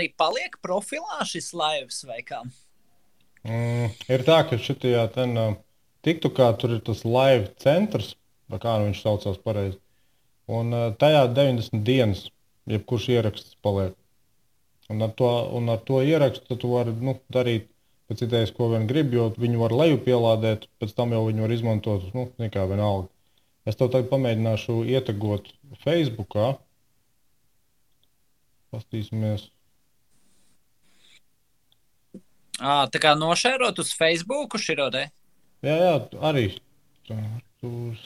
arī paliek profilā šis laivs vai kā? Ir tā, ka šitajā TikTokā tur ir tas live centrs, vai kā nu viņš saucās pareizi. Un tajā 90 dienas, jebkurš ieraksts paliek. Un ar to ierakstu tu vari darīt pēc idejas, ko vien gribi, jo viņu var leju pielādēt, pēc tam jau viņu var izmantot, nekā vienalga. Es tev tagad pamēģināšu ietegot Facebookā. Pastīsimies. Tā kā nošērot uz Facebooku širo te? Jā, arī. Artūrs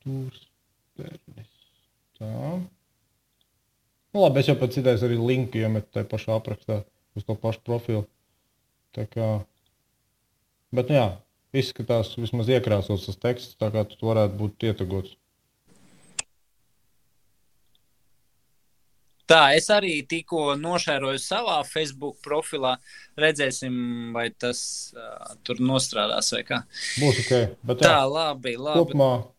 Pernis. Tā. Labi, es jau pēc idejas arī linku iemetu tajā pašā aprakstā uz to pašu profilu. Tā kā, bet jā, izskatās vismaz iekrāsots tas teksts, tā kā tu varētu būt ietegots. Tā, es arī tikko nošēroju savā Facebook profilā. Redzēsim, vai tas tur nostrādās vai kā. Būs ok. Bet tā, jā, labi.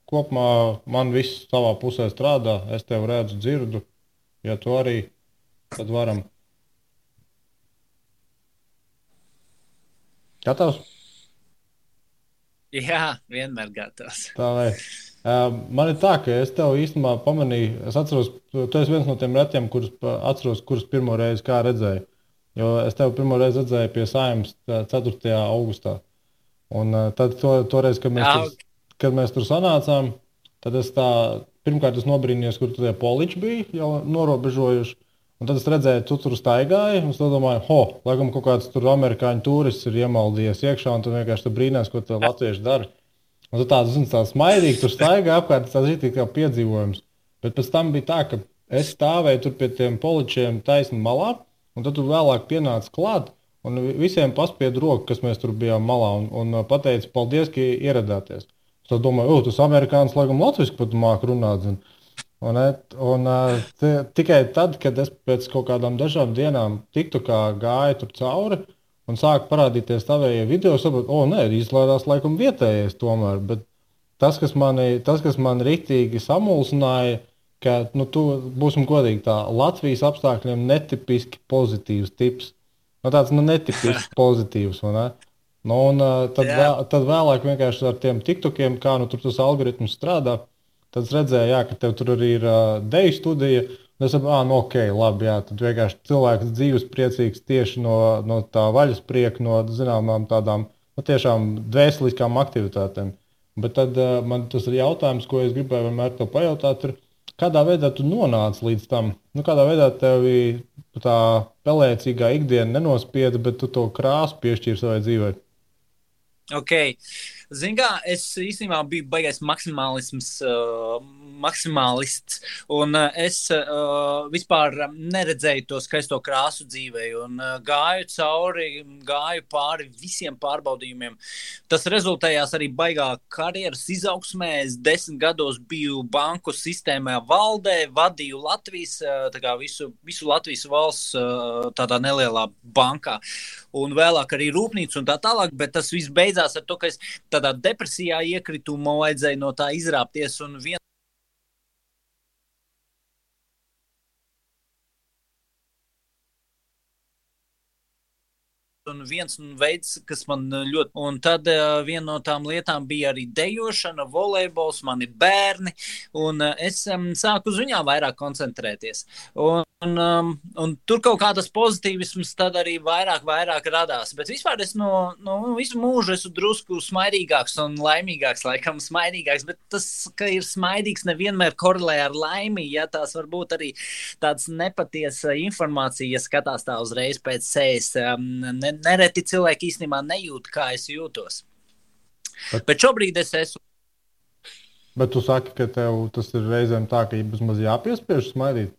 Kopumā man viss savā pusē strādā. Es tev redzu, dzirdu. Ja tu arī, tad varam. Gatavs? Jā, vienmēr gatavs. Tā vai. Man ir tā, ka es tev īstenībā pamanīju, es atceros, tu esi viens no tiem retiem, kurus pirmo reizi kā redzēju. Jo es tev pirmo reizi redzēju pie Saeimas 4. augustā. Un tad toreiz, kad mēs tur sanācām, tad es pirmkārt nobrīnījos, kur tie poliči bija jau norobežojuši. Un tad es redzēju, tu tur staigāji, un es domāju, laikam kaut kāds tur amerikāņu turists ir iemaldījies iekšā, un tu vienkārši brīnās, ko tie latvieši dara. Un tu tāds smaidīgi tur staigā apkārt, tas ir kā piedzīvojums. Bet pēc tam bija tā, ka es stāvēju tur pie tiem poličiem taisni malā, un tad tu vēlāk pienāci klāt, un visiem paspied roku, kas mēs tur bijām malā, un pateici, paldies, ka ieradāties. Es domāju, tas amerikānis laikam latviski pat māk runāt. Tikai tad, kad es pēc kaut kādām dažām dienām TikTokā gāju tur cauri un sāku parādīties tavējie video, saprotu, izlādās laikam vietējais tomēr. Bet tas, kas mani riktīgi samulsināja, ka, tu būsim godīgi tā, Latvijas apstākļiem netipiski pozitīvs tips. Tāds netipiski pozitīvs, vai ne? Tad vēlāk vienkārši ar tiem TikTokiem, kā tur tas algoritms strādā, tad es redzēju, ka tev tur arī ir deju studija. Es saprotu, ok, labi, jā, tad vienkārši cilvēks dzīves priecīgs tieši no tā vaļasprieka, no zināmām tādām tiešām dvēseliskām aktivitātēm. Bet tad man tas ir jautājums, ko es gribēju vienmēr tev pajautāt, ir, kādā veidā tu nonāci līdz tam? Kādā veidā tev tā pelēcīgā ikdiena nenospieda, bet tu to krāsu piešķīri savai dzīvei? Ok, zini kā, es īstenībā biju baigais maksimālists, un es vispār neredzēju to skaisto krāsu dzīvē, un gāju pāri visiem pārbaudījumiem. Tas rezultējās arī baigā karjeras izaugsmē. Es 10 gados biju banku sistēmā valdē, vadīju Latvijas, visu Latvijas valsts tādā nelielā bankā, un vēlāk arī rūpnīcu un tā tālāk, bet tas viss beidzās ar to, ka es tādā depresijā iekritu, man vajadzēja no tā izrāpties, un viens veids, kas man ļoti... Un tad viena no tām lietām bija arī dejošana, volejbols, man ir bērni, un es sāku uz viņām vairāk koncentrēties. Un tur kaut kā tas pozitīvisms tad arī vairāk radās. Bet vispār es no visu mūžu esmu drusku smaidīgāks un laimīgāks, laikam smaidīgāks, bet tas, ka ir smaidīgs, nevienmēr korelē ar laimi, ja tās var būt arī tāds nepatiesa informācija, ja skatās tā uzreiz pēc sejas. Nereti cilvēki īstenībā nejūt, kā es jūtos. Bet šobrīd es esmu. Bet tu saki, ka tev tas ir reizēm tā, ka vismaz jāpiespiež smaidīt?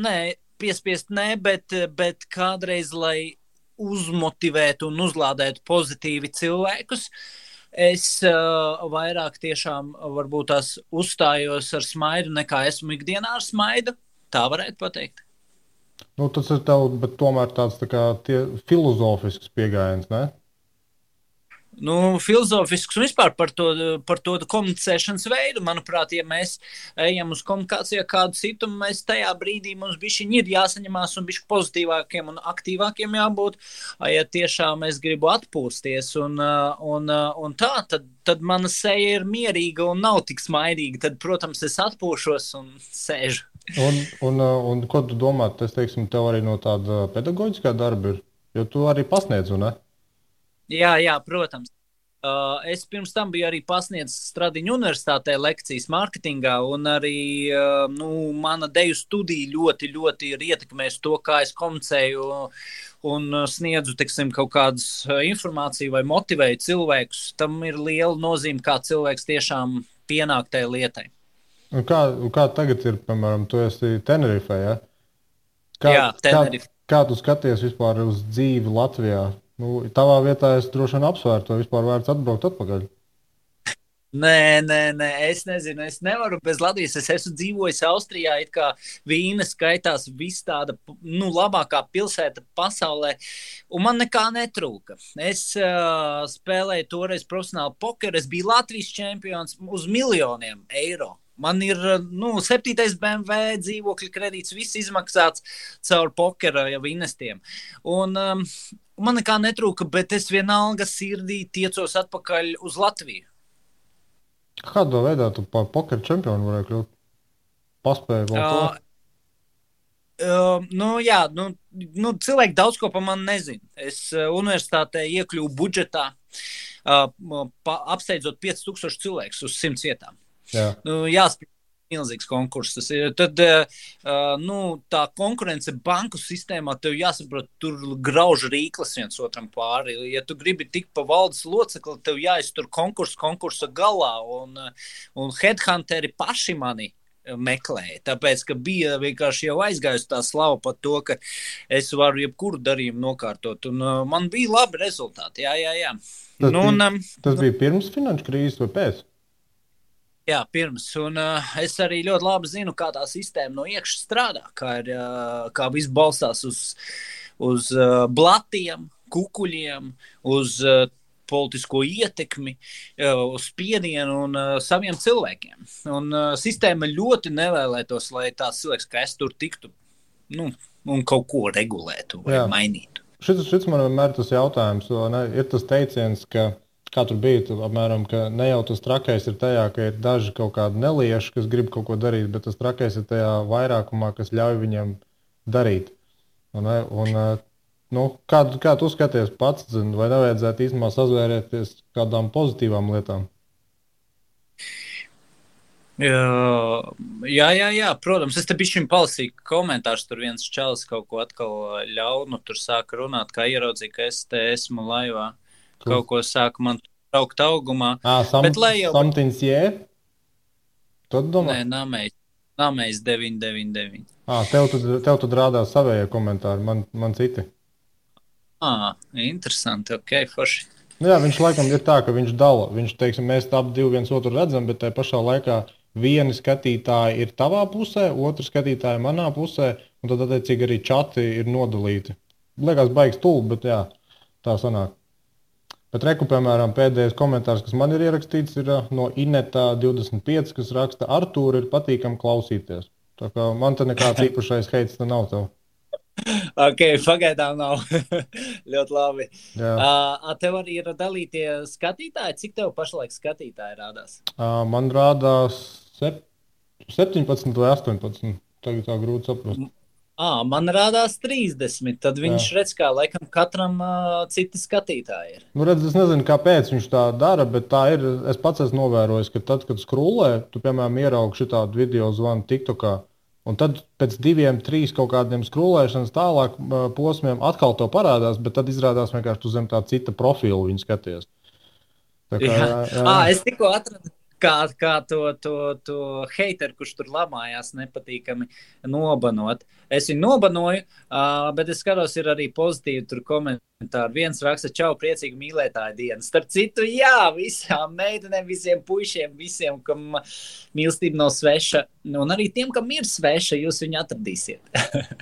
Nē, piespiest nē, bet kādreiz, lai uzmotivētu un uzlādētu pozitīvi cilvēkus, es vairāk tiešām varbūt tās uzstājos ar smaidu, nekā esmu ikdienā ar smaidu. Tā varētu pateikt. Tas ir tev, bet tomēr tāds tā kā filozofisks pieejams, ne? Filozofisks un vispār par to komunicēšanas veidu. Manuprāt, ja mēs ejam uz komunikāciju ar kādu citu, mēs tajā brīdī mums bišķiņ ir jāsaņemās un bišķi pozitīvākiem un aktīvākiem jābūt. Ja tiešām es gribu atpūsties un tā, tad mana seja ir mierīga un nav tik smaidīga. Tad, protams, es atpūšos un sēžu. Un ko tu domā? Tas, teiksim, tev arī no tāda pedagoģiskā darba ir, jo tu arī pasniedz, un ne? Jā, protams. Es pirms tam biju arī pasniedzis Stradiņu universitātē lekcijas mārketingā, un arī mana deju studija ļoti, ļoti ir ietekmējusi to, kā es komunicēju un sniedzu, teiksim, kaut kādas informāciju vai motivēju cilvēkus. Tam ir liela nozīme, kā cilvēks tiešām pienāk tai lietai. Un kā tagad ir, piemēram, tu esi Tenerifē, ja? Jā, Tenerife. Kā tu skaties vispār uz dzīvi Latvijā? Tavā vietā es droši vien apsvērtu, vai vispār vērts atbraukt atpakaļ. Nē, es nezinu, es nevaru bez Latvijas. Es esmu dzīvojis Austrijā, it kā Vīna skaitās viss tāda, labākā pilsēta pasaulē, un man nekā netrūka. Es spēlēju toreiz profesionāli pokeru, es biju Latvijas čempions uz miljoniem eiro. Man ir 7. BMW dzīvokļa kredīts, viss izmaksāts caur pokera jau investiem. Un man nekā netrūka, bet es vienalga sirdī tiecos atpakaļ uz Latviju. Kādā veidā tu par pokeru čempionu varēja kļūt? Paspēju vēl to? Cilvēki daudz ko par mani nezina. Es universitātē iekļuvu budžetā, apsteidzot 5000 cilvēkus uz 100 vietām. Jāspēj milzīgs konkurss. Tad tā konkurence banku sistēmā tev jāsaprot, tur grauž rīklas viens otram pāri. Ja tu gribi tikt pa valdes locekli, tev jāiztur konkursa galā, un headhunteri paši mani meklēja, tāpēc, ka bija vienkārši jau aizgājusi tā slava par to, ka es varu jebkuru darījumu nokārtot, un man bija labi rezultāti, jā. Tas bija pirms finanšu krīzes vai pēc? Jā, pirms, un es arī ļoti labi zinu, kā tā sistēma no iekšas strādā, kā viss balstās uz blatiem, kukuļiem, uz politisko ietekmi, uz spiedienu un saviem cilvēkiem. Un sistēma ļoti nevēlētos, lai tās cilvēks, ka es tur tiktu, un kaut ko regulētu vai mainītu. Šis man vienmēr tas jautājums, ir tas teiciens, ka kā tur bija, apmēram, ka ne jau tas trakais ir tajā, ka ir daži kaut kādi nelieši, kas grib kaut ko darīt, bet tas trakais ir tajā vairākumā, kas ļauj viņiem darīt. Kā tu skaties pats, vai nevajadzētu īstenībā sazvērēties kādām pozitīvām lietām? Jā, protams. Es te bišķiņ palasīju komentārus, tur viens čalis kaut ko atkal ļaunu, tur sāka runāt, kā ieraudzīja, ka es te esmu laivā. Kaut ko sāka man traukt augumā. Something's yeah? Tu domā? Nē, Namējs 999. Tev tad rādās savējie komentāri, man citi. Interesanti, ok, forši. Jā, viņš laikam ir tā, ka viņš dala. Viņš, teiksim, mēs ap divi viens otru redzam, bet tajā pašā laikā vieni skatītāji ir tavā pusē, otru skatītāji manā pusē, un tad attiecīgi arī čati ir nodalīti. Liekas baigs stulbi, bet jā, tā sanāk. Bet reku, piemēram, pēdējais komentārs, kas man ir ierakstīts, ir no Ineta 25, kas raksta, Artūra ir patīkami klausīties. Tā kā man te nekāds īpašais heits te nav tev. Ok, pagaidām nav. Ļoti labi. Tev arī ir dalītie skatītāji? Cik tev pašlaik skatītāji rādās? Man rādās 17 vai 18. Tagad tā grūti saprast. Man rādās 30, tad viņš redz, kā laikam katram citi skatītāji ir. Redz, es nezinu, kāpēc viņš tā dara, bet tā ir. Es pats esmu novērojis, ka tad, kad skrūlē, tu, piemēram, ieraugi šitādu video zvanu TikTokā, un tad pēc 2, 3 kaut kādiem skrūlēšanas tālāk posmiem atkal to parādās, bet tad izrādās vienkārši tu zem tā cita profilu viņu skaties. Tā kā, jā. Es tikko atradu kā to heiteru, kurš tur lamājās, nepatīkami nobanot. Es viņu nobanoju, bet es skatos, ir arī pozitīvi tur komentāri. Viens raksta, čau, priecīgi mīlētāju dienu. Starp citu, jā, visām meitenēm, visiem puišiem, visiem, kam mīlestība nav sveša, un arī tiem, kam ir sveša, jūs viņu atradīsiet.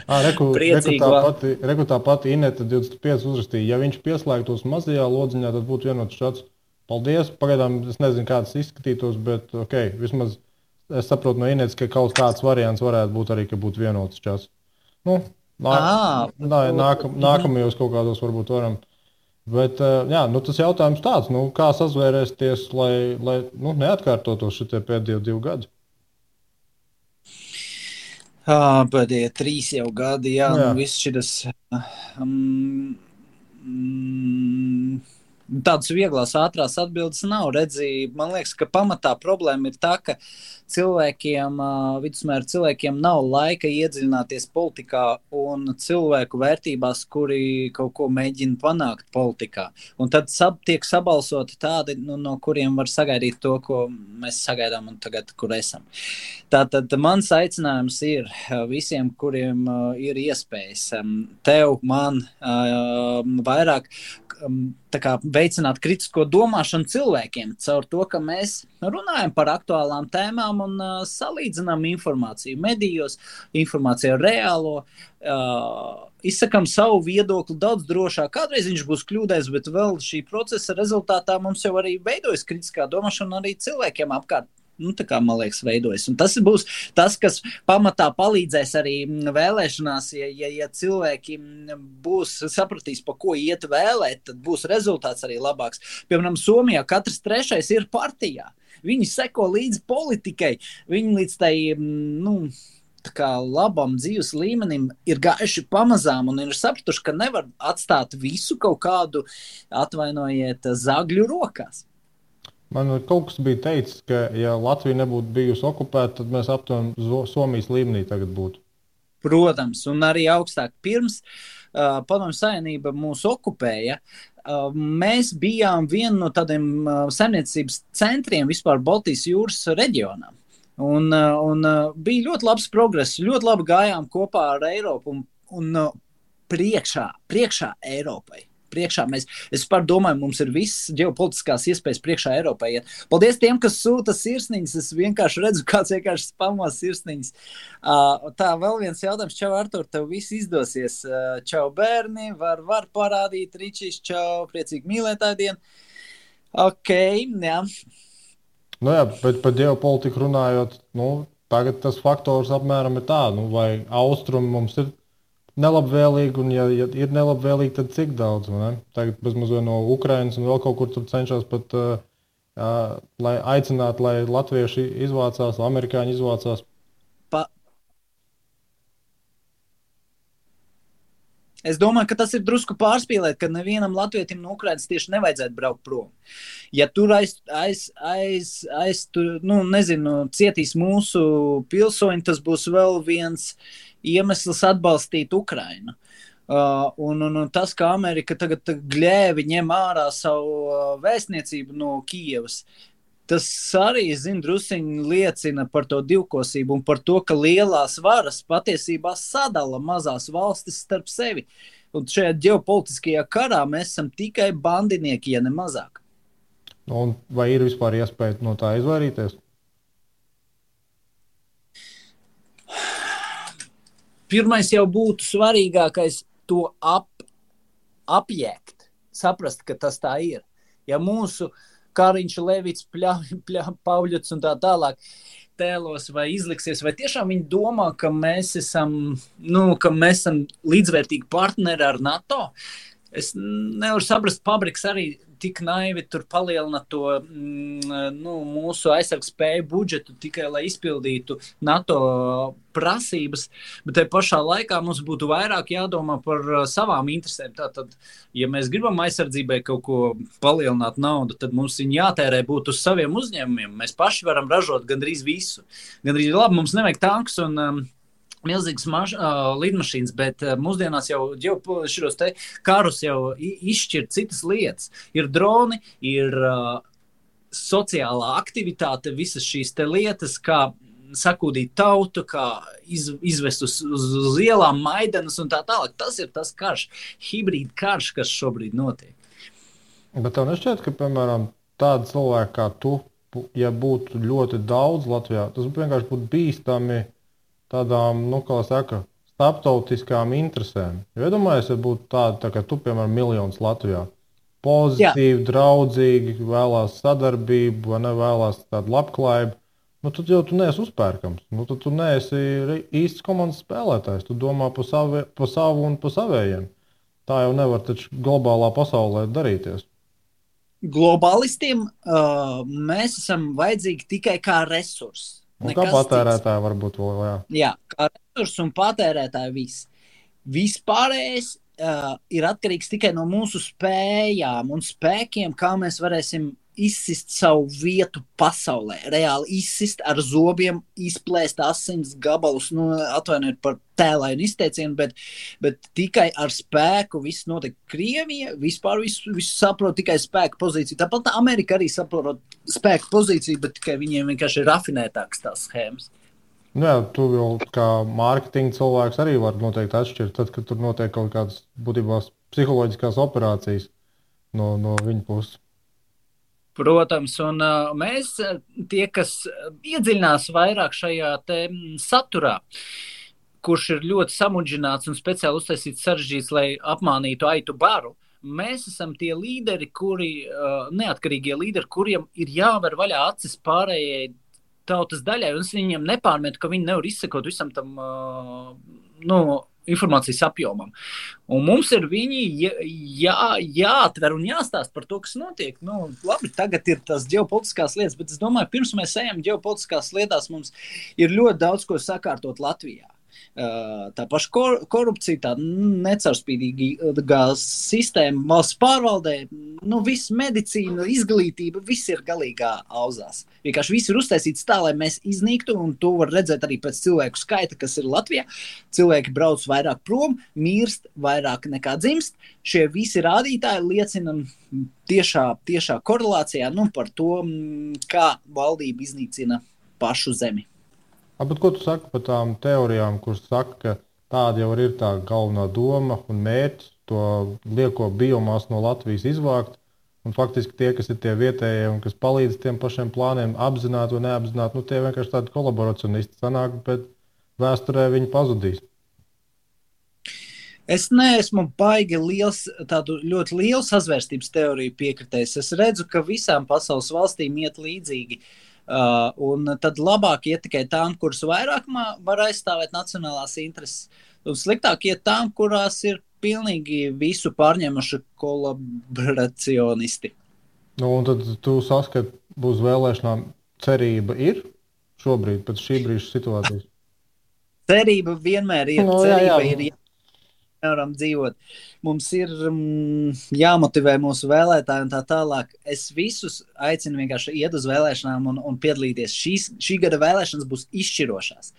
Reku tā pati Ineta 25 uzrakstīja, ja viņš pieslēgtos mazajā lodziņā, tad būtu vienots šāds. Paldies, pagaidām es nezinu, kā tas izskatītos, bet ok, vismaz es saprotu no Inetas, ka kaut kāds variants varētu būt arī, ka būtu vienots čats. Nu, nākamajos kaut kādos varbūt varam. Bet, jā, nu tas jautājums tāds, nu, kā sazvērēsties, lai neatkārtotos šitie pēdējie 2 gadi? Pēdējie 3 jau gadi, jā. Nu, viss šitas... Tādas vieglās, ātrās atbildes nav. Redzi, man liekas, ka pamatā problēma ir tā, ka vidusmēra cilvēkiem nav laika iedziļināties politikā un cilvēku vērtībās, kuri kaut ko mēģina panākt politikā. Un tad tiek sabalsoti tādi, no kuriem var sagaidīt to, ko mēs sagaidām un tagad, kur esam. Tātad mans aicinājums ir visiem, kuriem ir iespējas, tev, man, vairāk veicināt kritisko domāšanu cilvēkiem caur to, ka mēs runājam par aktuālām tēmām un salīdzinām informāciju medijos, informāciju ar reālo, izsakam savu viedokli daudz drošāk. Kādreiz viņš būs kļūdējis, bet vēl šī procesa rezultātā mums jau arī veidojas kritiskā domāšana arī cilvēkiem apkārt. Tā kā, man liekas, veidojas. Un tas būs tas, kas pamatā palīdzēs arī vēlēšanās, ja cilvēki sapratīs, pa ko iet vēlēt, tad būs rezultāts arī labāks. Piemēram, Somijā katrs 3. ir partijā. Viņi seko līdz politikai, viņi līdz tai, labam dzīves līmenim ir gājuši pamazām un ir sapratuši, ka nevar atstāt visu kaut kādu, atvainojiet, zagļu rokās. Man kaut kas bija teicis, ka ja Latvija nebūtu bijusi okupēta, tad mēs aptuveni Somijas līmenī tagad būtu. Protams, un arī augstāk. Pirms Padomju Savienība mūs okupēja, mēs bijām viena no tādiem saimniecības centriem vispār Baltijas jūras reģionā. Un bija ļoti labs progress, ļoti labi gājām kopā ar Eiropu un priekšā Eiropai. Es domāju, mums ir viss ģeopolitiskās iespējas priekšā Eiropai. Paldies tiem, kas sūta sirsniņas. Es vienkārši redzu, kāds vienkārši spamo sirsniņas. Tā, vēl viens jautājums. Čau, Artur, tev viss izdosies. Čau, bērni. Var parādīt Ričīs. Čau, priecīgi mīlētāju dienu. Ok, jā. Nu jā, bet par ģeopolitiku runājot, tagad tas faktors apmēram ir tā, vai austrumi mums ir nelabvēlīgi, un ja ir nelabvēlīgi, tad cik daudz, ne? Tagad bezmazliet no Ukrainas un vēl kaut kur tur cenšas pat lai aicinātu, lai latvieši izvācās, amerikāņi izvācās. Es domāju, ka tas ir drusku pārspīlēt, ka nevienam latvietim no Ukrainas tieši nevajadzētu braukt prom. Ja tur cietīs mūsu pilsoņi, tas būs vēl viens iemesls atbalstīt Ukrainu. Un tas, ka Amerika tagad gļēvi ņem ārā savu vēstniecību no Kijevas, tas arī, drusciņi liecina par to divkosību un par to, ka lielās varas patiesībā sadala mazās valstis starp sevi. Un šajā ģeopolitiskajā karā mēs esam tikai bandinieki, ja ne mazāk. Un vai ir vispār iespēja no tā izvairīties? Pirmais jau būtu svarīgākais to apjēgt, saprast, ka tas tā ir. Ja mūsu Kariņš, Levits, Pauļots un tā tālāk tēlos vai izliksies, vai tiešām viņi domā, ka mēs esam līdzvērtīgi partneri ar NATO? Es nevaru saprast, Pabriks arī tik naivi tur palielina to mūsu aizsargspēju budžetu tikai, lai izpildītu NATO prasības, bet te pašā laikā mums būtu vairāk jādomā par savām interesēm. Tātad, ja mēs gribam aizsardzībai kaut ko palielināt naudu, tad mums viņi jātērē būtu uz saviem uzņēmumiem. Mēs paši varam ražot gandrīz visu. Gandrīz labi, mums nevajag tanks un milzīgas lidmašīnas, bet mūsdienās jau šos te karus jau izšķir citas lietas. Ir droni, ir sociālā aktivitāte, visas šīs te lietas, kā sakūdīt tautu, kā izvest uz ielām Maidanas un tā tālāk. Tas ir tas karš, hibrīd karš, kas šobrīd notiek. Bet tev nešķiet, ka, piemēram, tādi cilvēki kā tu, ja būtu ļoti daudz Latvijā, tas vienkārši būtu bīstami tādām, nu, kā saka, starptautiskām interesēm. Jo iedomājies, ja būtu tādi, tā kā tu, piemēram, miljonus Latvijā. Pozitīvi, draudzīgi, vēlās sadarbību, vai nevēlās tādu labklājību, nu, tad jau tu neesi uzpērkams. Nu, tad tu neesi īsts komandas spēlētājs. Tu domā pa savu un pa savējiem. Tā jau nevar taču globālā pasaulē darīties. Globālistiem mēs esam vajadzīgi tikai kā resursi. Kā patērētāji varbūt vēl, jā. Jā, kā resursi un patērētāji viss. Vispārējais ir atkarīgs tikai no mūsu spējām un spēkiem, kā mēs varēsim izsist savu vietu pasaulē. Reāli izsist ar zobiem, izplēst asins gabalus, nu, atvainojiet par tēlainu izteicienu, bet tikai ar spēku viss notiek. Krievija vispār visu saprot tikai spēku pozīciju. Tāpat Amerika arī saprot spēku pozīciju, bet tikai viņiem vienkārši ir rafinētāks tās schēmas. Jā, tu jau kā mārketinga cilvēks arī var noteikti atšķirt, tad, kad tur notiek kaut kādas būtībā psiholoģiskās operācijas no viņa puses. Protams, un mēs, tie, kas iedziļinās vairāk šajā te saturā, kurš ir ļoti samudžināts un speciāli uztaisīts sarežģīts, lai apmānītu aitu baru, mēs esam tie līderi, neatkarīgie līderi, kuriem ir jāver vaļā acis pārējai tautas daļai, un es viņiem nepārmetu, ka viņi nevar izsekot visam tam, informācijas apjomam. Un mums ir viņi jāatver un jāstāst par to, kas notiek. Nu, labi, tagad ir tās ģeopolitiskās lietas, bet es domāju, pirms mēs ejam ģeopolitiskās lietās, mums ir ļoti daudz ko sakārtot Latvijā. Tā paša korupcija, tā necaurspīdīgā sistēma valsts pārvaldē, viss medicīna, izglītība, viss ir galīgā auzās. Vienkārši viss ir uztaisīts tā, lai mēs iznīktu, un to var redzēt arī pēc cilvēku skaita, kas ir Latvijā. Cilvēki brauc vairāk prom, mirst vairāk nekā dzimst. Šie visi rādītāji liecina tiešā korelācijā par to, kā valdība iznīcina pašu zemi. Bet ko tu saki par tām teorijām, kuras saka, ka tāda jau ir tā galvenā doma un mērķis to lieko biomasu no Latvijas izvākt, un faktiski tie, kas ir tie vietējie un kas palīdz tiem pašiem plāniem apzināti vai neapzināti, tie vienkārši tādi kolaborationisti sanāk, bet vēsturē viņi pazudīs. Es neesmu baigi tādu ļoti lielu sazvērstības teoriju piekritējis. Es redzu, ka visām pasaules valstīm iet līdzīgi. Un tad labāk iet tikai tām, kuras vairāk var aizstāvēt nacionālās intereses, un sliktāk iet tām, kurās ir pilnīgi visu pārņemuši kolaboracionisti. Un tad tu saskati, būs vēlēšanām cerība ir šobrīd, pēc šī brīža situācijas? Cerība vienmēr ir. Cerība ir. Nevaram dzīvot. Mums ir jāmotivē mūsu vēlētāji un tā tālāk. Es visus aicinu vienkārši iet uz vēlēšanām un piedalīties. Šī gada vēlēšanas būs izšķirošās.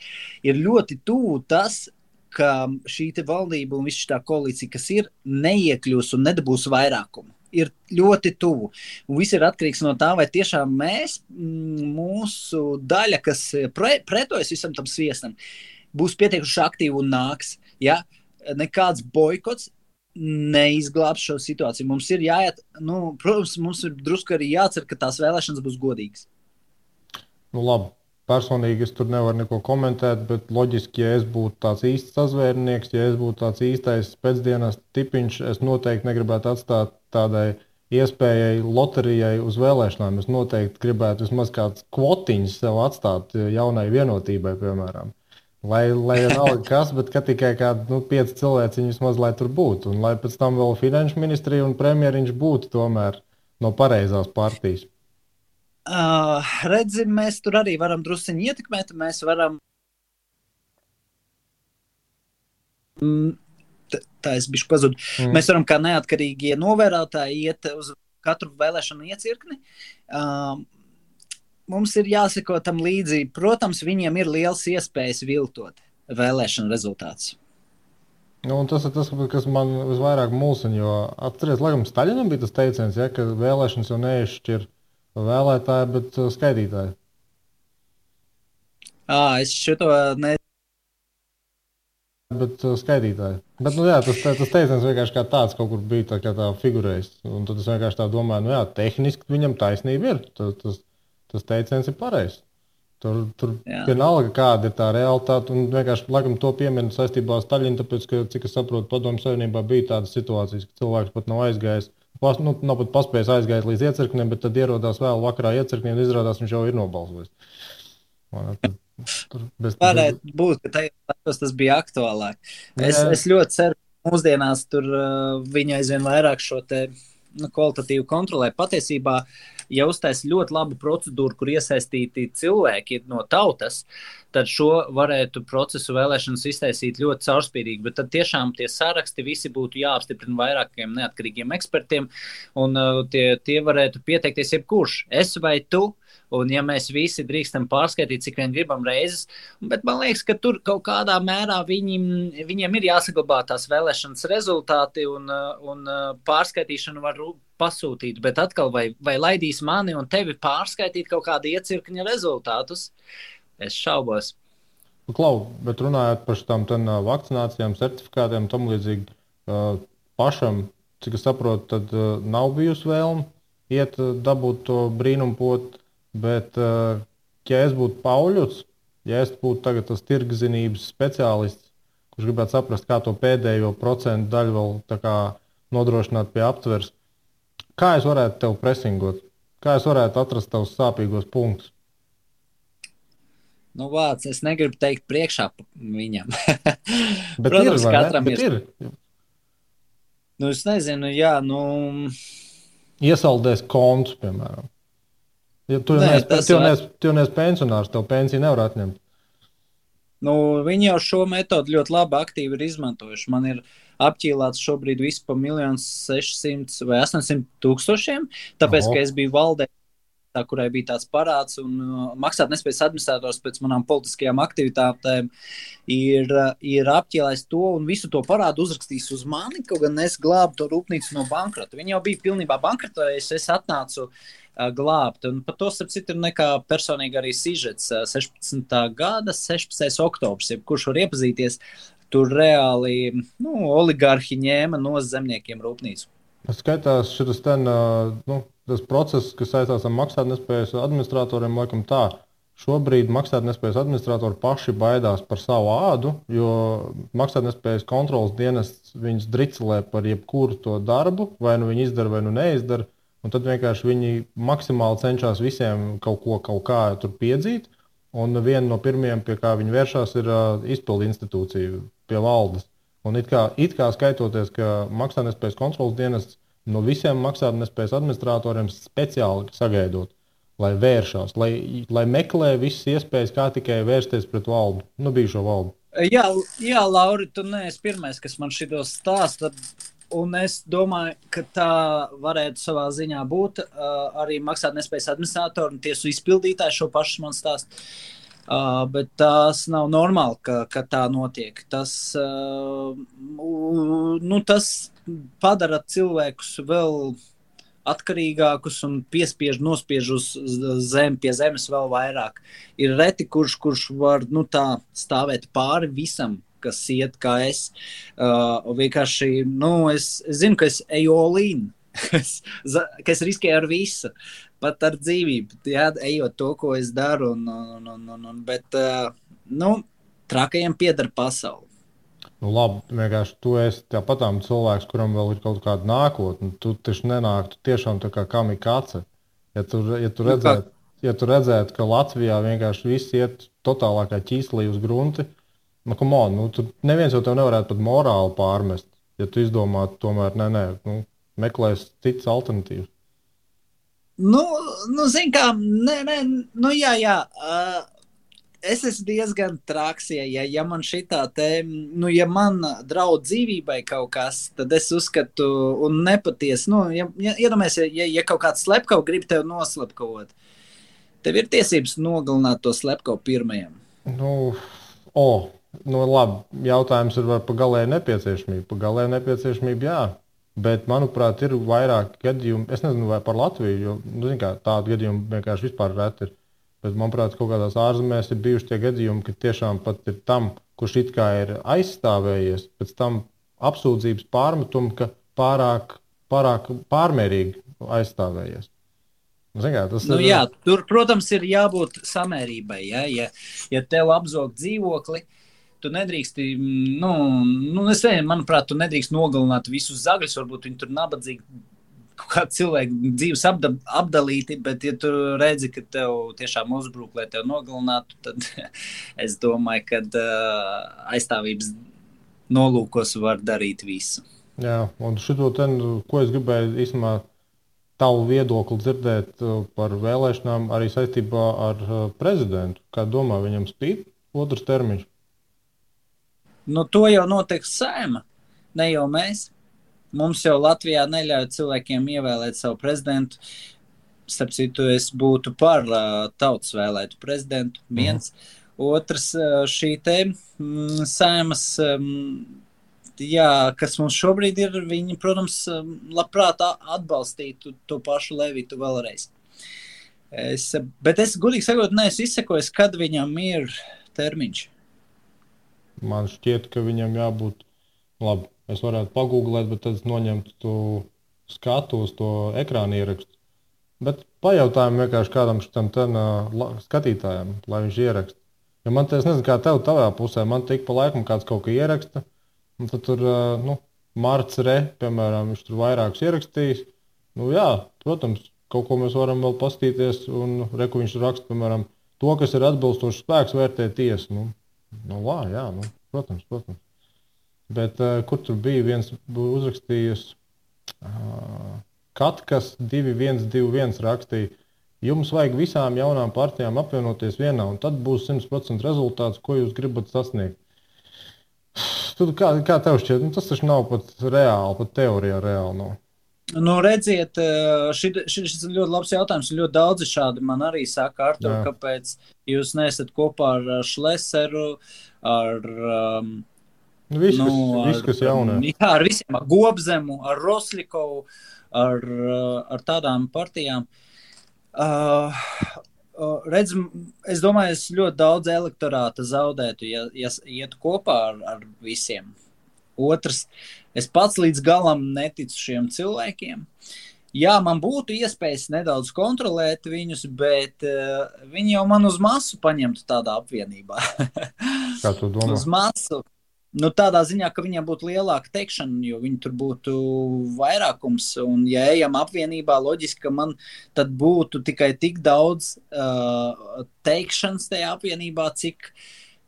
Ir ļoti tuvu tas, ka šī te valdība un viss tā koalīcija, kas ir, neiekļūs un nedabūs vairākumu. Ir ļoti tuvu. Un viss ir atkarīgs no tā, vai tiešām mēs, mūsu daļa, kas pretojas visam tam sviestam, būs pietiekuši aktīvi un nāks. Ja? Nekāds boikots neizglābs šo situāciju. Mums ir jāiet, protams, mums ir drusku arī jācer, ka tās vēlēšanas būs godīgas. Labi. Personīgi es tur nevaru neko komentēt, bet loģiski, ja es būtu tāds īsts sazvērnieks, ja es būtu tāds īstais pēcdienas tipiņš, es noteikti negribētu atstāt tādai iespējai loterijai uz vēlēšanām. Es noteikti gribētu vismaz kāds kvotiņš sev atstāt jaunai vienotībai, piemēram. Lai nav kas, bet tikai kādi 5 cilvēki vismaz, lai tur būtu. Un lai pēc tam vēl finanšu ministrija un premjeriņš būtu tomēr no pareizās partijas. Redzi, mēs tur arī varam drusciņi ietekmēt. Mēs varam... Tā es bišķi pazudu. Mēs varam kā neatkarīgie novērotāji iet uz katru vēlēšanu iecirkni. Mums ir jāseko tam līdzi. Protams, viņiem ir liels iespējas viltot vēlēšanu rezultātus. Un tas ir tas, kas man visvairāk mulsina, jo atceries, laikam Staļinam bija tas teiciens, ka vēlēšanas jau neizšķir vēlētāji, bet skaitītāji. Es šito ne. Bet skaitītāji. Bet, tas teiciens vienkārši kā tāds kaut kur bija tā figurējis. Un tad es vienkārši tā domāju, tehniski viņam taisnība ir. Tas teiciens ir pareizs. Tur vienalga, kāda ir tā realitāte. Un vienkārši laikam to pieminu saistībā ar Staļinu, tāpēc, ka, cik es saprotu, Padomju Savienībā bija tādas situācijas, ka cilvēks pat nav aizgājis. Nav pat paspējis aiziet līdz iecirknim, bet tad ierodās vēl vakarā iecirknī un izrādās, viņš jau ir nobalsojis. Varētu būt, ka tajos tas bija aktuālāk. Es ļoti ceru, ka mūsdienās tur viņi aizvien vairāk šo te kvalitatīvu kontrolē. Patiesībā, ja uztais ļoti labu procedūru, kur iesaistīti cilvēki no tautas, tad šo varētu procesu vēlēšanas iztaisīt ļoti caurspīdīgi, bet tad tiešām tie saraksti visi būtu jāapstiprina vairākiem neatkarīgiem ekspertiem, un tie varētu pieteikties jebkurš, es vai tu. Un ja mēs visi drīkstam pārskaitīt, cik vien gribam reizes, bet man liekas, ka tur kaut kādā mērā viņiem ir jāsaglabā tās vēlēšanas rezultāti un pārskaitīšanu var pasūtīt, bet atkal vai laidīs mani un tevi pārskaitīt kaut kādu iecirkņa rezultātus? Es šaubos. Klau, bet runājot par šitām vakcinācijām, certifikātiem, tam līdzīgi pašam, cik es saprotu, tad nav bijusi vēlme iet dabūt to brīnumpotu. Bet, ja es būtu Pauļuts, ja es būtu tagad tas tirgzinības speciālists, kurš gribētu saprast, kā to pēdējo procentu daļu vēl tā kā nodrošināt pie aptveres, kā es varētu tev presingot? Kā es varētu atrast tavus sāpīgos punktus? Nu, vārds, es negribu teikt priekšā viņam. Bet protams, ir, katram ir. Nu, es nezinu, Iesaldēs kontus, piemēram. Ja tu neesi pensionārs, tev pensiju nevar atņemt. Nu, viņi jau šo metodu ļoti labi aktīvi ir izmantojuši. Man ir apķīlāts šobrīd viss pa 1 600 vai 800 tūkstošiem, tāpēc, ka es biju valdē, kurai bija tāds parāds, un maksātnespējas administrators pēc manām politiskajām aktivitātēm ir apķēlējis to un visu to parādu uzrakstījis uz mani, kaut gan es glābu to rūpnīcu no bankrota. Viņi jau bija pilnībā bankrotējuši, es atnācu glābt, un par to, starp citu, ir nekā personīgi arī sižets 16. gada 16. oktobrs, kurš var iepazīties, tur reāli oligarhi ņēma no zemniekiem rūpnīcu. Skaitās šitas tas process, kas saistās ar maksātnespējas administratoriem, laikam tā. Šobrīd maksātnespējas administratori paši baidās par savu ādu, jo maksātnespējas kontrolas dienests viņus dricelē par jebkuru to darbu, vai nu viņi izdara, vai nu neizdara, un tad vienkārši viņi maksimāli cenšas visiem kaut kā tur piedzīt, un viena no pirmajiem, pie kā viņi vēršās, ir izpildu institūcija pie valdes. Un it kā skaitoties, ka maksātnespējas kontrolas dienests no visiem maksātnespējas administratoriem speciāli sagaidot, lai vēršās, lai meklē visas iespējas, kā tikai vērsties pret valdu, bijušo valdu. Jā, Lauri, tu neesi pirmais, kas man šito stāsta, un es domāju, ka tā varētu savā ziņā būt arī maksātnespējas administratori un tiesu izpildītāji šo pašu man stāstu. Bet tas nav normāli, ka tā notiek. Tas padara cilvēkus vēl atkarīgākus un nospiež uz pie zemes vēl vairāk. Ir reti, kurš var stāvēt pāri visam, kas iet kā es. Vienkārši, es zinu, ka es eju olīnu, ka es riskēju ar visu. Pat ar dzīvību, ejot to, ko es daru, bet trakajiem pieder pasauli. Labi, vienkārši tu esi tāpatām cilvēks, kuram vēl ir kaut kāda nākotne. Tu taču nenāktu tiešām tā kā kamikaze. Ja tu redzētu, ka Latvijā vienkārši viss iet totālākā ķīslī uz grunti, tur neviens jau tev nevarētu pat morāli pārmest, ja tu izdomātu tomēr, meklēs citas alternatīvas. Zin kā, jā. Es esmu diezgan traks, ja man šitā ja man draud dzīvībai kaut kas, tad es uzskatu un nepatiesi, iedomājies, ja kaut kāds slepkava grib tev noslepkavot, tev ir tiesības nogalināt to slepkavu pirmajam. Labi, jautājums ir par galēju nepieciešamību. Par galēju nepieciešamību, jā. Bet, manuprāt, ir vairāk gadījumu. Es nezinu, vai par Latviju, jo tādu gadījumu vienkārši vispār reti ir. Bet, manuprāt, kaut kādās ārzemēs ir bijuši tie gadījumi, ka tiešām pat ir tam, kurš it kā ir aizstāvējies, pēc tam apsūdzības pārmetumu, ka pārāk pārmērīgi aizstāvējies. Jā, tur, protams, ir jābūt samērībai. Ja tev apzog dzīvokli, tu nedrīksti, es nezinu, manuprāt, tu nedrīkst nogalināt visus zagļus, varbūt viņi tur nabadzīgi kaut kā cilvēku dzīves apdalīti, bet ja tu redzi, ka tev tiešām uzbruk, lai tev nogalinātu, tad es domāju, ka aizstāvības nolūkos var darīt visu. Jā, un šito ko es gribēju īstenībā tavu viedokli dzirdēt par vēlēšanām arī saistībā ar prezidentu. Kā domā, viņam spīd otrs termiņš? To jau noteiks Saeima, ne jau mēs. Mums jau Latvijā neļauj cilvēkiem ievēlēt savu prezidentu. Starp citu, es būtu par tautas vēlētu prezidentu. Viens. Otrs, šī te Saeimas, kas mums šobrīd ir, viņi, protams, labprāt atbalstītu to pašu Levitu vēlreiz. Bet es, godīgi sakot, neesmu izsekojis, kad viņam ir termiņš. Man šķiet, ka viņam jābūt labi. Es varētu pagūglēt, bet tad es noņemtu skatu uz to ekrāna ierakstu. Bet pajautājam vienkārši kādam šitam skatītājam, lai viņš ieraksta. Jo man te, es nezinu, kā tev tavā pusē, man tik pa laikam kāds kaut ko ieraksta. Un tad tur, Marts Re, piemēram, viņš tur vairākus ierakstījis. Jā, protams, kaut ko mēs varam vēl pastīties. Un reku viņš raksta, piemēram, to, kas ir atbilstošs spēks, vērtē tiesa. Protams. Bet kur tur bija viens uzrakstījis, Katkas 2121 rakstīja, jums vajag visām jaunām partijām apvienoties vienā, un tad būs 100% rezultāts, ko jūs gribat sasniegt. Tad, kā tev šķiet? Tas taču nav pat reāli, pat teorijā reāli nav. Redziet, šis ir ļoti labs jautājums. Ļoti daudzi šādi man arī saka, Artur, kāpēc jūs neesat kopā ar Šleseru, ar viss, kas jaunā. Jā, ar visiem, ar Gobzemu, ar Roslikovu, ar tādām partijām. Es domāju, es ļoti daudz elektorāta zaudētu, ja iet kopā ar visiem. Otrs, es pats līdz galam neticu šiem cilvēkiem. Jā, man būtu iespējas nedaudz kontrolēt viņus, bet viņi jau man uz masu paņemtu tādā apvienībā. Kā tu domā? Uz masu. Tādā ziņā, ka viņiem būtu lielāka teikšana, jo viņi tur būtu vairākums. Un ja ejam apvienībā, loģiski, ka man tad būtu tikai tik daudz teikšanas tajā apvienībā, cik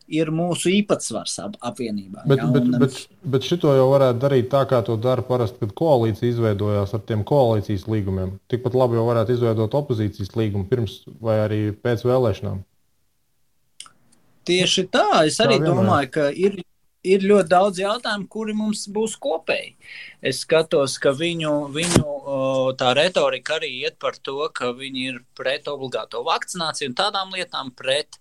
ir mūsu īpatsvars apvienībā. Bet šito jau varētu darīt tā, kā to dara parasti, kad koalīcija izveidojās ar tiem koalīcijas līgumiem. Tikpat labi jau varētu izveidot opozīcijas līgumu pirms vai arī pēc vēlēšanām. Tieši tā. Es arī domāju, ka ir ļoti daudz jautājumu, kuri mums būs kopēji. Es skatos, ka viņu tā retorika arī iet par to, ka viņi ir pret obligāto vakcināciju un tādām lietām, pret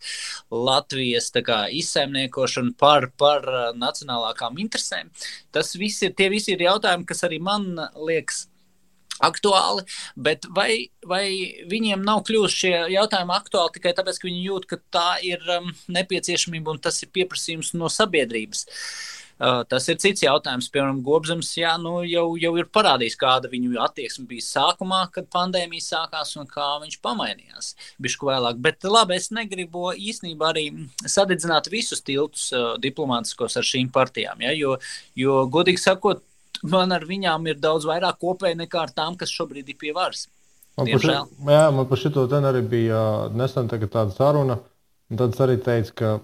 Latvijas izsaimniekošanu par nacionālākām interesēm. Tie visi ir jautājumi, kas arī man liekas aktuāli, bet vai viņiem nav kļuvuši šie jautājumi aktuāli tikai tāpēc, ka viņi jūt, ka tā ir nepieciešamība un tas ir pieprasījums no sabiedrības. Tas ir cits jautājums. Piemēram, Gobzems jau ir parādījis, kāda viņu attieksme bija sākumā, kad pandēmija sākās un kā viņš pamainījās bišķi vēlāk. Bet labi, es negribu īstenībā arī sadedzināt visus tiltus diplomātiskos ar šīm partijām, jo godīgi sakot, man ar viņām ir daudz vairāk kopēji nekā ar tām, kas šobrīd ir pie varas. Man par šito arī bija nesen tāda saruna, un tad es arī teicu, ka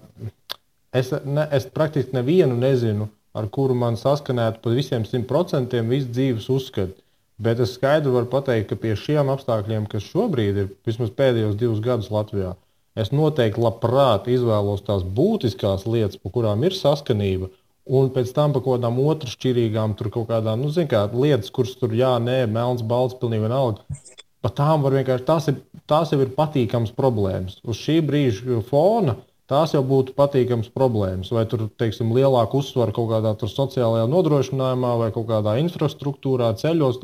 es praktiski nevienu nezinu, ar kuru man saskanētu pa visiem 100% visu dzīves uzskatu. Bet es skaidri varu pateikt, ka pie šiem apstākļiem, kas šobrīd ir vismaz pēdējos 2 gadus Latvijā, es noteikti labprāt izvēlos tās būtiskās lietas, pa kurām ir saskanība, un pēc tam par kaut kādām otršķirīgām, tur kaut kādām, lietas, kuras tur melns, balts, pilnīgi vienalga. Par tām var vienkārši, tās jau ir patīkams problēmas. Uz šī brīža fona tās jau būtu patīkams problēmas. Vai tur, teiksim, lielāku uzsvaru kaut kādā sociālajā nodrošinājumā vai kaut kādā infrastruktūrā, ceļos,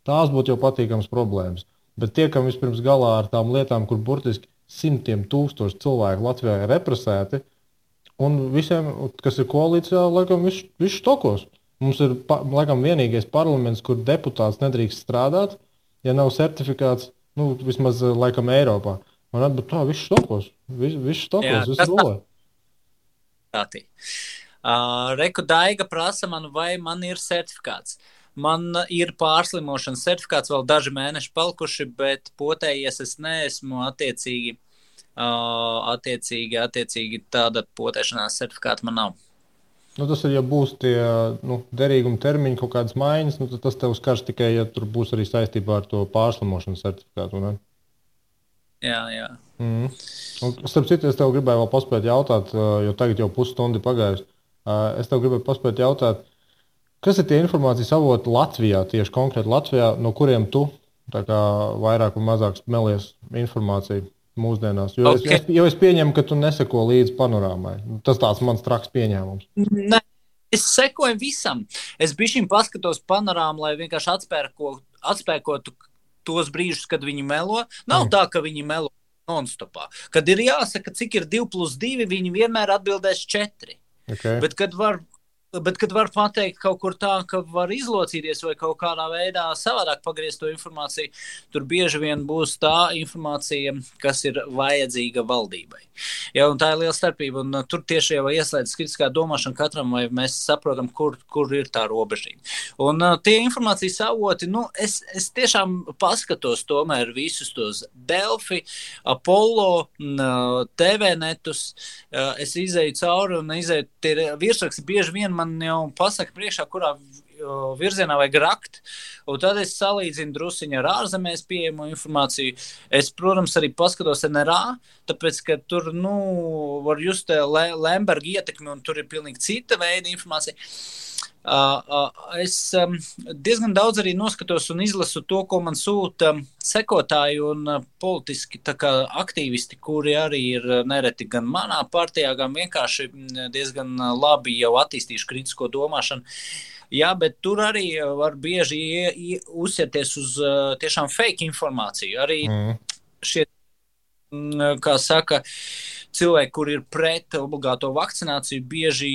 tās būtu jau patīkams problēmas. Bet tiekam vispirms galā ar tām lietām, kur burtiski simtiem tūkstoši cilvēku Latvijā ir represēti, un visiem, kas ir koalīcijā, laikam, viss štokos. Mums ir, laikam, vienīgais parlaments, kur deputāts nedrīkst strādāt, ja nav certifikāts, vismaz, laikam, Eiropā. Man atbūt tā, viss štokos, viss rolē. Reku Daiga prasa man, vai man ir certifikāts. Man ir pārslimošanas certifikāts, vēl daži mēneši palikuši, bet potējies es neesmu attiecīgi tāda potēšanās certifikāta man nav. Tas ir, ja būs tie derīguma termiņi, kaut kādas maiņas, tad tas tev skars tikai, ja tur būs arī saistībā ar to pārslimošanas certifikātu, ne? Jā. Un, starp citu, es tev gribēju vēl paspēt jautāt, jo tagad jau pusstundi pagājusi. Es tev gribēju paspēt jautāt, kas ir tie informācijas avoti Latvijā, tieši konkrēti Latvijā, no kuriem tu tā kā vairāk un mazāk smelies informāciju mūsdienās? Jo es pieņemu, ka tu neseko līdzi panorāmai. Tas tāds mans traks pieņēmums. Ne, es sekoju visam. Es bišķiņ paskatos panorāmu, lai vienkārši atspēkotu tos brīžus, kad viņi melo. Nav tā, ka viņi melo non-stopā. Kad ir jāsaka, cik ir 2+2, viņi vienmēr atbildēs 4. Okay. Bet kad var pateikt kaut kur tā, ka var izlocīties vai kaut kādā veidā savādāk pagriezt to informāciju, tur bieži vien būs tā informācija, kas ir vajadzīga valdībai. Ja, un tā ir liela starpība, un tur tieši jau ieslēdz kritiskā domāšana katram, vai mēs saprotam, kur ir tā robežība. Un tie informācijas avoti, es tiešām paskatos tomēr visus tos Delfi, Apollo, TV netus, es izēju cauri un izēju tie virsraksti bieži vien man jau pasaka priekšā, kurā virzienā vajag rakt, un tad es salīdzinu drusiņu ar ārzemēs pieejamo informāciju. Es, protams, arī paskatos NRA, tāpēc, ka tur, var just Lemberga ietekmi, un tur ir pilnīgi cita veida informācija. Es diezgan daudz arī noskatos un izlasu to, ko man sūta sekotāji un politiski tā kā aktīvisti, kuri arī ir nereti gan manā partijā, gan vienkārši diezgan labi jau attīstījuši kritisko domāšanu. Jā, bet tur arī var bieži uzsierties uz tiešām fake informāciju. Arī šie, kā saka, cilvēki, kur ir pret obligāto vakcināciju, bieži,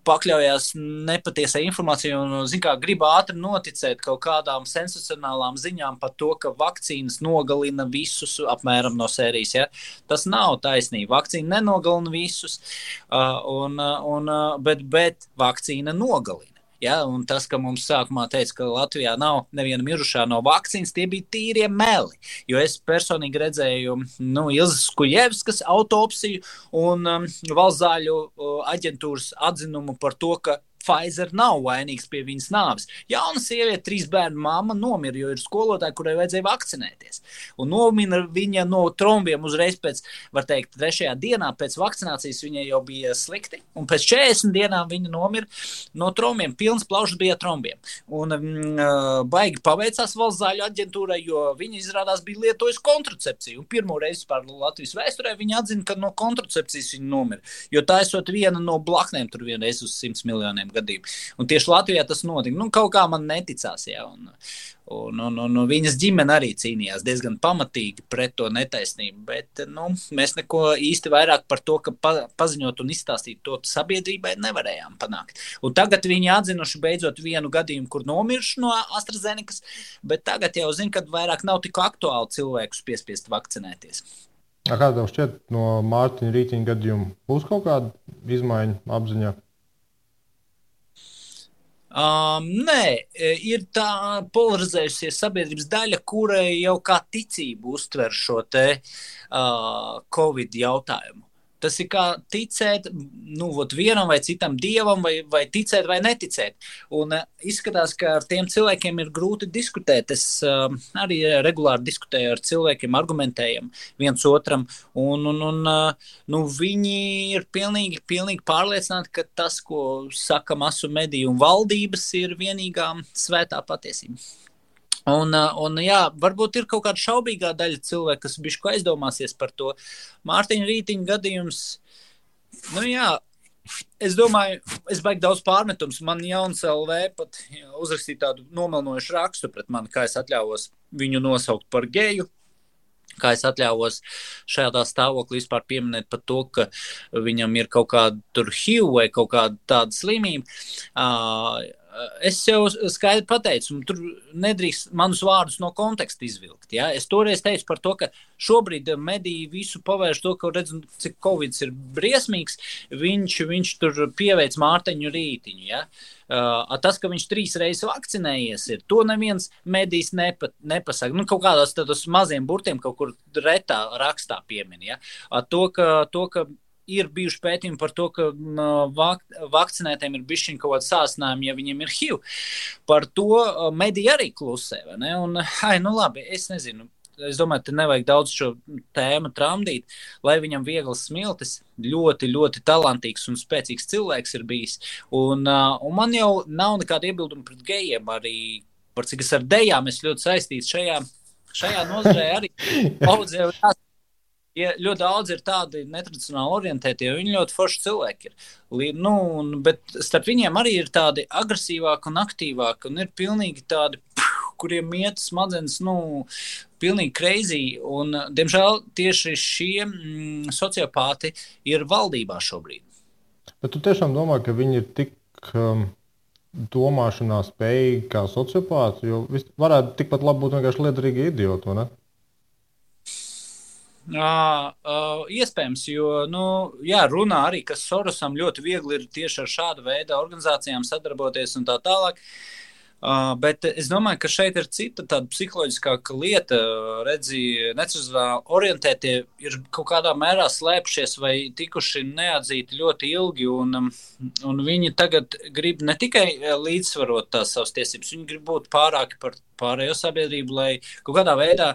pakļaujās nepatiesai informācijai un, grib ātri noticēt kaut kādām sensacionālām ziņām par to, ka vakcīnas nogalina visus apmēram no sērijas. Ja? Tas nav taisnība. Vakcīna nenogalina visus, bet vakcīna nogalina. Ja, un tas, ka mums sākumā teica, ka Latvijā nav neviena mirušā no vakcīnas, tie bija tīrie meli. Jo es personīgi redzēju Ilzas Kuļevskas autopsiju un valsts zāļu aģentūras atzinumu par to, ka Pfizer nav vainīgs pie viņas nāves. Jauna sieviete, 3 bērnu mamma nomira, jo ir skolotāja, kurai vajadzēja vakcinēties. Un nomira viņa no trombiem uzreiz pēc, var teikt, 3. dienā pēc vakcinācijas viņai jau bija slikti. Un pēc 40 dienām viņa nomira no trombiem. Pilns plaušas bija trombiem. Un baigi paveicās valsts zāļu aģentūrai, jo viņa izrādās bija lietojusi kontracepciju. Un pirmo reizi par Latvijas vēsturē viņa atzina, ka no kontracepcijas viņa nomira. Jo tā esot viena no blaknēm tur vienreiz uz 100 miljoniem gadījumu. Un tieši Latvijā tas notika. Kaut kā man neticās, jā. Un viņas ģimene arī cīnījās diezgan pamatīgi pret to netaisnību, bet mēs neko īsti vairāk par to, ka paziņot un izstāstīt to sabiedrībai nevarējām panākt. Un tagad viņi atzinuši beidzot vienu gadījumu, kur nomiršu no AstraZenekas, bet tagad jau zinu, ka vairāk nav tik aktuāli cilvēkus piespiest vakcinēties. Kā tev šķiet no Mārtiņa Rītiņa gadījuma būs kaut kāda izmaiņa apziņā? Nē, ir tā polarizējusies sabiedrības daļa, kurai jau kā ticību uztver šo te Covid jautājumu. Tas ir kā ticēt vienam vai citam dievam, vai ticēt vai neticēt. Un izskatās, ka ar tiem cilvēkiem ir grūti diskutēt. Es arī regulāri diskutēju ar cilvēkiem, argumentējam viens otram. Un viņi ir pilnīgi pārliecināti, ka tas, ko saka masu mediju un valdības, ir vienīgā svētā patiesība. Un jā, varbūt ir kaut kāda šaubīgā daļa cilvēku, kas bišķi aizdomāsies par to. Mārtiņa Rītiņa gadījums, nu jā, es domāju, es baigi daudz pārmetums. Man Jauns LV pat uzrakstīja tādu nomelnojušu rakstu pret mani, kā es atļāvos viņu nosaukt par geju. Kā es atļāvos šādā stāvoklī vispār pieminēt par to, ka viņam ir kaut kāda tur HIV vai kaut kāda tāda slimība. Es jau skaidri pateicu, un tur nedrīkst manus vārdus no konteksta izvilkt. Ja? Es toreiz teicu par to, ka šobrīd mediji visu pavērš to, ka redz, cik Covid ir briesmīgs, viņš tur pieveic Mārtiņu Rītiņu. Ja? Tas, ka viņš 3 reizes vakcinējies, ir to neviens medijs nepasaka. Nu, kaut kādās tādos maziem burtiem kaut kur retā rakstā piemin. Ja? To, ka ir bijuši pētījumi par to, ka vakcinētiem ir bišķiņ kaut kāda sāsinājuma, ja viņiem ir HIV. Par to mediji arī klusē, vai ne? Un, nu labi, es nezinu. Es domāju, te nevajag daudz šo tēmu tramdīt, lai viņam viegls smiltis, ļoti, ļoti talantīgs un spēcīgs cilvēks ir bijis. Un man jau nav nekāda iebilduma pret gejiem, arī par cik es ar dejām es ļoti saistīts šajā nozarē arī. Ja ļoti daudz ir tādi netradicionāli orientēti, jo viņi ļoti forši cilvēki ir. Bet starp viņiem arī ir tādi agresīvāki un aktīvāki, un ir pilnīgi tādi, kuriem iet smadzenes, pilnīgi crazy. Un, diemžēl, tieši šie sociopāti ir valdībā šobrīd. Bet tu tiešām domā, ka viņi ir tik domāšanā spējīgi kā sociopāti, jo varētu tikpat labi būt vienkārši liederīgi idioti, vai ne? Iespējams, jo runā arī, ka Sorosam ļoti viegli ir tieši ar šādu veidu organizācijām sadarboties un tā tālāk. Bet es domāju, ka šeit ir cita tāda psiholoģiskāka lieta. Redzi, netradicionāli orientētie ir kaut kādā mērā slēpšies vai tikuši neatzīti ļoti ilgi, un viņi tagad grib ne tikai līdzsvarot tās savas tiesības, viņi grib būt pārāki par pārējo sabiedrību, lai kaut kādā veidā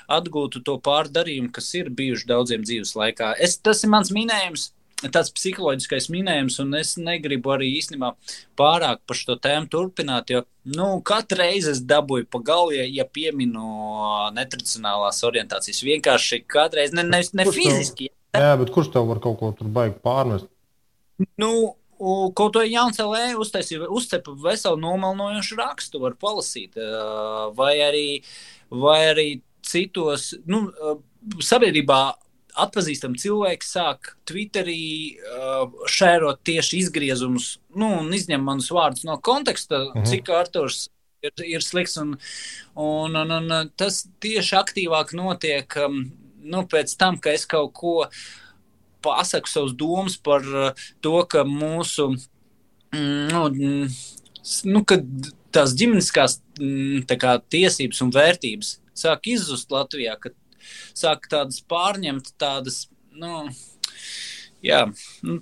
atgūtu to pārdarījumu, kas ir bijuši daudziem dzīves laikā. Tas ir mans minējums. Tāds psiholoģiskais minējums, un es negribu arī īstenībā pārāk par šo tēmu turpināt, jo katru reizi es dabūju pa galvu, ja pieminu netradicionālās orientācijas. Vienkārši katreiz, ne fiziski. Jā, bet kurš tev var kaut ko tur baigi pārmest? Kaut to Jauns LV uzcepa veselu nomelnojošu rakstu, var palasīt, vai arī citos, sabiedrībā atpazīstami cilvēki sāk Twitterī šērot tieši izgriezumus, un izņem manus vārdus no konteksta, cik Arturs ir slikts, un tas tieši aktīvāk notiek pēc tam, ka es kaut ko pasaku savus domas par to, ka mūsu, kad tās ģimeniskās tiesības un vērtības sāk izzust Latvijā, ka sāk tādas pārņemt tādas,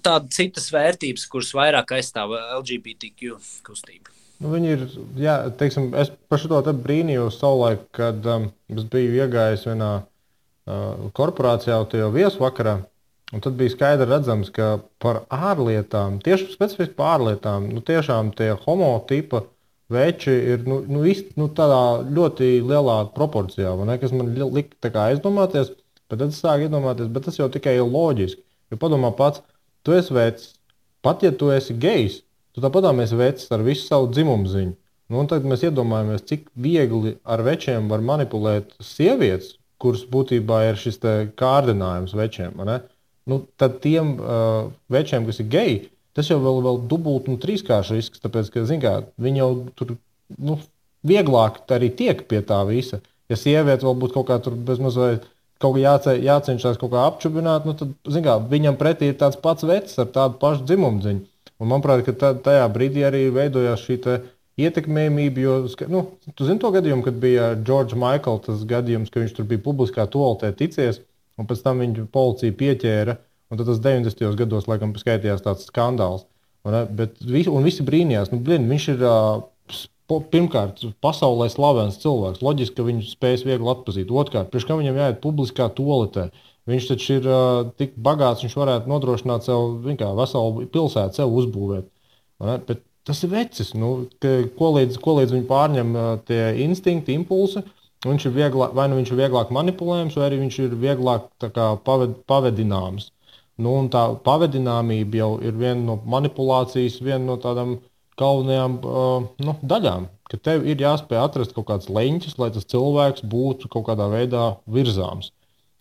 tādas citas vērtības, kuras vairāk aizstāv LGBTQ kustību. Viņi ir, teiksim, es par šo te brīnījos savulaik, kad es biju iegājis vienā korporācijā tajā viesvakarā, un tad bija skaidri redzams, ka par ārlietām, tieši specifiski par ārlietām, tiešām tie homotipa veči ir tādā ļoti lielā proporcijā, kas man lika aizdomāties, bet tad es sāku iedomāties, bet tas jau tikai ir loģiski. Jo padomā pats, tu esi vecs, pat ja tu esi gejs, tu tāpatām esi vecs ar visu savu dzimumu ziņu. Un tad mēs iedomājamies, cik viegli ar večiem var manipulēt sievietes, kuras būtībā ir šis te kārdinājums večiem. Tad tiem večiem, kas ir geji, tas jau vēl dubult un trīskārši risks, tāpēc, ka, viņi jau tur, vieglāk arī tiek pie tā visa. Ja sieviete vēl būtu kaut kā tur bezmazliet kaut kā jācenšas kaut kā apčubināt, tad, viņam pretī ir tāds pats vecs ar tādu pašu dzimumdziņu. Un manuprāt, ka tajā brīdī arī veidojās šī te ietekmējumība, jo, tu zini to gadījumu, kad bija George Michael tas gadījums, ka viņš tur bija publiskā toaletē ticies, un pēc tam viņu policija pieķēra. Un tad tas 90. gados, laikam, skaitījās tāds skandāls. Un visi brīnījās. Viņš ir pirmkārt pasaulē slavens cilvēks. Loģiski, ka viņu spējas viegli atpazīt. Otrkārt, priekš kā viņam jāiet publiskā toaletē. Viņš taču ir tik bagāts, viņš varētu nodrošināt sev veselu pilsētu, sev uzbūvēt. Bet Tas ir vecis, ko līdz viņi pārņem tie instinkti, impulsi. Viņš ir vieglāk, vai nu viņš ir vieglāk manipulējams, vai arī viņš ir vieglāk pavedināms. Un tā pavedināmība jau ir viena no manipulācijas, viena no tādām galvenajām daļām. Ka tev ir jāspēj atrast kaut kāds leņķis, lai tas cilvēks būtu kaut kādā veidā virzāms.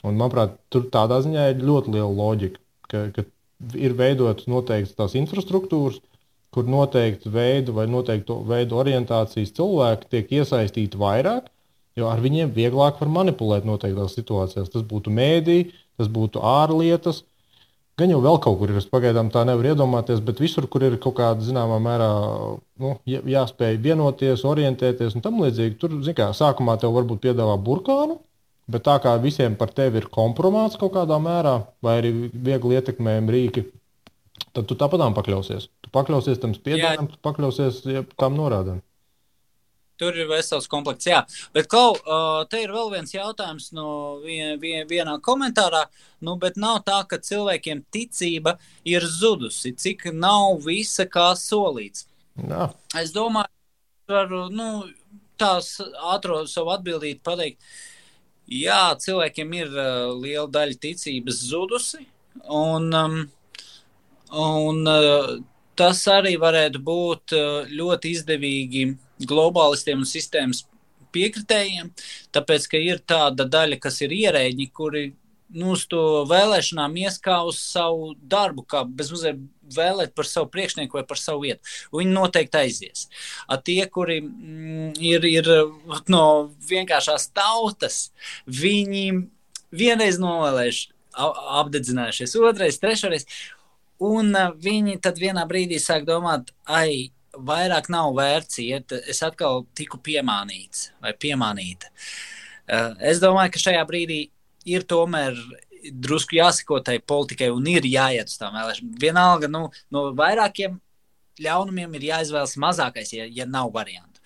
Un, manuprāt, tur tādā ziņā ir ļoti liela loģika, ka ir veidotas noteiktas tās infrastruktūras, kur noteikti veidu vai noteiktu veidu orientācijas cilvēki tiek iesaistīti vairāk, jo ar viņiem vieglāk var manipulēt noteiktās situācijās. Tas būtu mēdī, tas būtu ārlietas, gan jau vēl kaut kur ir, es pagaidām tā nevaru iedomāties, bet visur, kur ir kaut kāda zināmā mērā jāspēj vienoties, orientēties un tam līdzīgi, tur, sākumā tev varbūt piedāvā burkānu, bet tā kā visiem par tevi ir kompromāts kaut kādā mērā, vai arī viegli ietekmējami rīki, tad tu tāpatām pakļausies. Tu pakļausies tam spiedienam, tu pakļausies tam norādēm. Tur ir vesels komplekts, jā. Bet, te ir vēl viens jautājums no vienā komentārā, bet nav tā, ka cilvēkiem ticība ir zudusi, cik nav visa kā solīts. Jā. Es domāju, varu, tās ātro savu atbildīt pateikt, jā, cilvēkiem ir liela daļa ticības zudusi, un tas arī varētu būt ļoti izdevīgi globālistiem un sistēmas piekritējiem, tāpēc, ka ir tāda daļa, kas ir ierēģi, kuri uz to vēlēšanām ies kā uz savu darbu, kā bezmazliet vēlēt par savu priekšnieku vai par savu vietu. Viņi noteikti aizies. Tie, kuri ir no vienkāršās tautas, viņi vienreiz novēlējuši, apdedzinājušies, otrais, trešreiz, un viņi tad vienā brīdī sāk domāt, vairāk nav vērts iet, es atkal tiku piemānīts vai piemānīta. Es domāju, ka šajā brīdī ir tomēr drusku jāsako tai politikai un ir jāiet uz tām vēlēšanām. Vienalga, no vairākiem ļaunumiem ir jāizvēlas mazākais, ja nav variantu.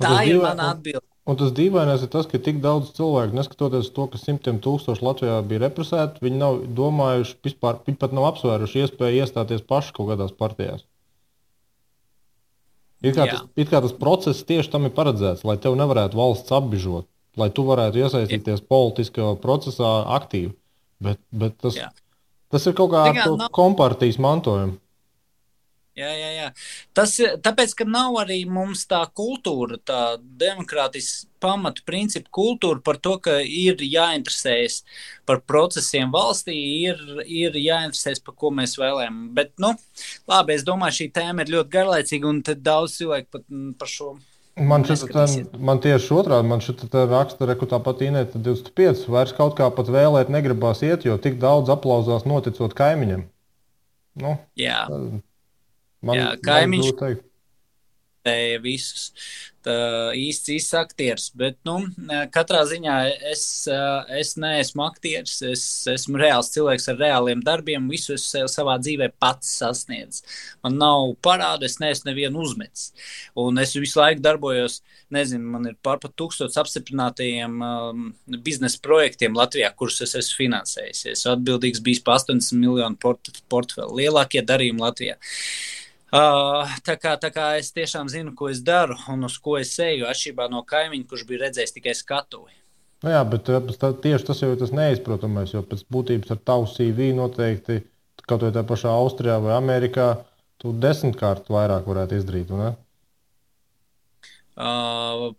Tā ir mana atbilde. Un tas dīvainais ir tas, ka tik daudz cilvēku, neskatoties to, ka 100,000 Latvijā bija represēti, viņi nav domājuši, vispār, viņi pat nav apsvēruši iespēju iestāties paši kaut kādās partijās. It kā tas process tieši tam ir paredzēts, lai tev nevarētu valsts apbižot, lai tu varētu iesaistīties politiskajā procesā aktīvi. Bet tas ir kaut kā kompartijas mantojums. Jā. Tāpēc, ka nav arī mums tā kultūra, tā demokrātisks pamatu principu kultūra par to, ka ir jāinteresējas par procesiem valstī, ir jāinteresējas, par ko mēs vēlējam. Bet, labi, es domāju, šī tēma ir ļoti garlaicīga, un tad daudz cilvēku pat par šo man tieši otrādi, man šitā raksta, ka tāpat Inēta 25, vairs kaut kā pat vēlēt negribās iet, jo tik daudz aplauzās noticot kaimiņam. Jā. Kaimiņš visus īsts aktieris, bet katrā ziņā es neesmu aktieris, es esmu reāls cilvēks ar reāliem darbiem, visu es savā dzīvē pats sasniedzu. Man nav parādu, es neesmu nevienu uzmetis. Un es visu laiku darbojos, man ir pār pat 1000 apstiprinātajiem biznesa projektiem Latvijā, kurus es esmu finansējis. Es atbildīgs bijis par 80 miljonu portfeli, lielākie darījumi Latvijā. Tā kā es tiešām zinu, ko es daru un uz ko es eju, atšķirībā no kaimiņa, kurš bija redzējis tikai skatuvi. Jā, bet tieši tas jau ir tas neizprotamais, jo pēc būtības ar tavu CV noteikti, kaut vai tā pašā Austrijā vai Amerikā, tu 10-kārt vairāk varētu izdarīt, ne?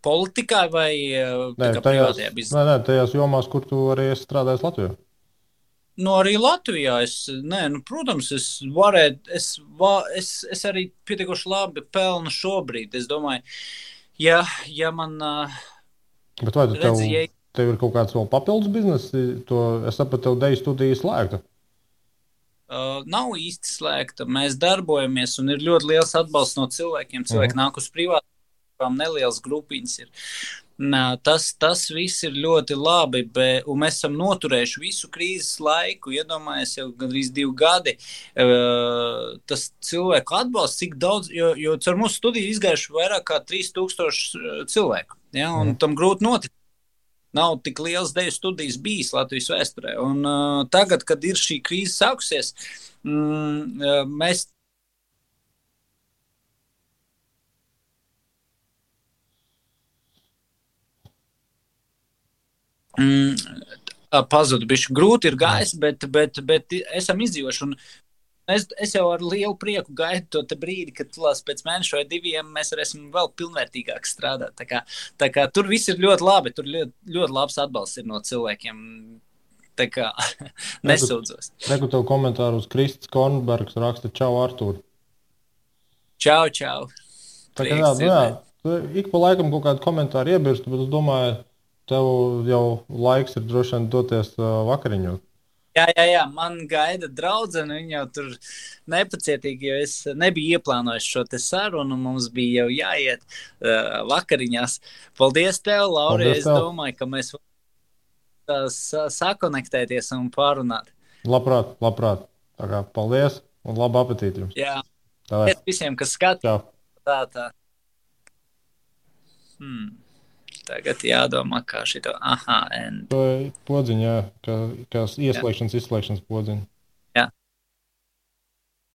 Politikā vai privātajā biznesā? Nē, tajās jomās, kur tu arī esi strādājis Latvijā. Arī Latvijā protams, es arī pietiekoši labi pelnu šobrīd. Es domāju, ja man bet vai tev ir kaut kāds vēl papildus bizness? Es sapratu, tev deju studiju slēgta. Nav īsti slēgta. Mēs darbojamies un ir ļoti liels atbalsts no cilvēkiem. Cilvēki nāk uz privātām, nelielas grupiņas ir. Tas viss ir ļoti labi, un mēs esam noturējuši visu krīzes laiku, iedomājies jau gandrīz 2 gadi, tas cilvēku atbalsts, cik daudz, jo caur mūsu studiju izgājuši vairāk kā 3000 cilvēku, un tam grūti notikt. Nav tik liels deju studijas bijis Latvijas vēsturē, un tagad, kad ir šī krīze sākusies, mēs Pazudu bišķi. Grūti ir gājis, bet esam izdzīvoši. Un es jau ar lielu prieku gaidu to brīdi, kad pēc mēneša vai 2 mēs varēsim vēl pilnvērtīgāk strādāt. Tā kā tur viss ir ļoti labi. Tur ļoti labs atbalsts ir no cilvēkiem. Tā kā nesūdzos. Reku tev komentāru uz Kristis Kornbergs raksta čau, Artūr. Čau, čau. Tā kā ik pa laikam kaut kādu komentāru iebirst, bet es domāju, tev jau laiks ir droši vien doties vakariņot. Jā, man gaida draudzene, viņa jau tur nepacietīgi, jo es nebiju ieplānojis šo te sarunu, mums bija jau jāiet vakariņās. Paldies tev, Lauri, es domāju, ka mēs sakonektēties un pārunāt. Labprāt. Tā kā paldies un labu apetīti jums. Jā, paldies visiem, kas skatās. Tā. Tagad jādomā, kā šito. Aha, podziņa, kā ieslēgšanas, izslēgšanas podziņa.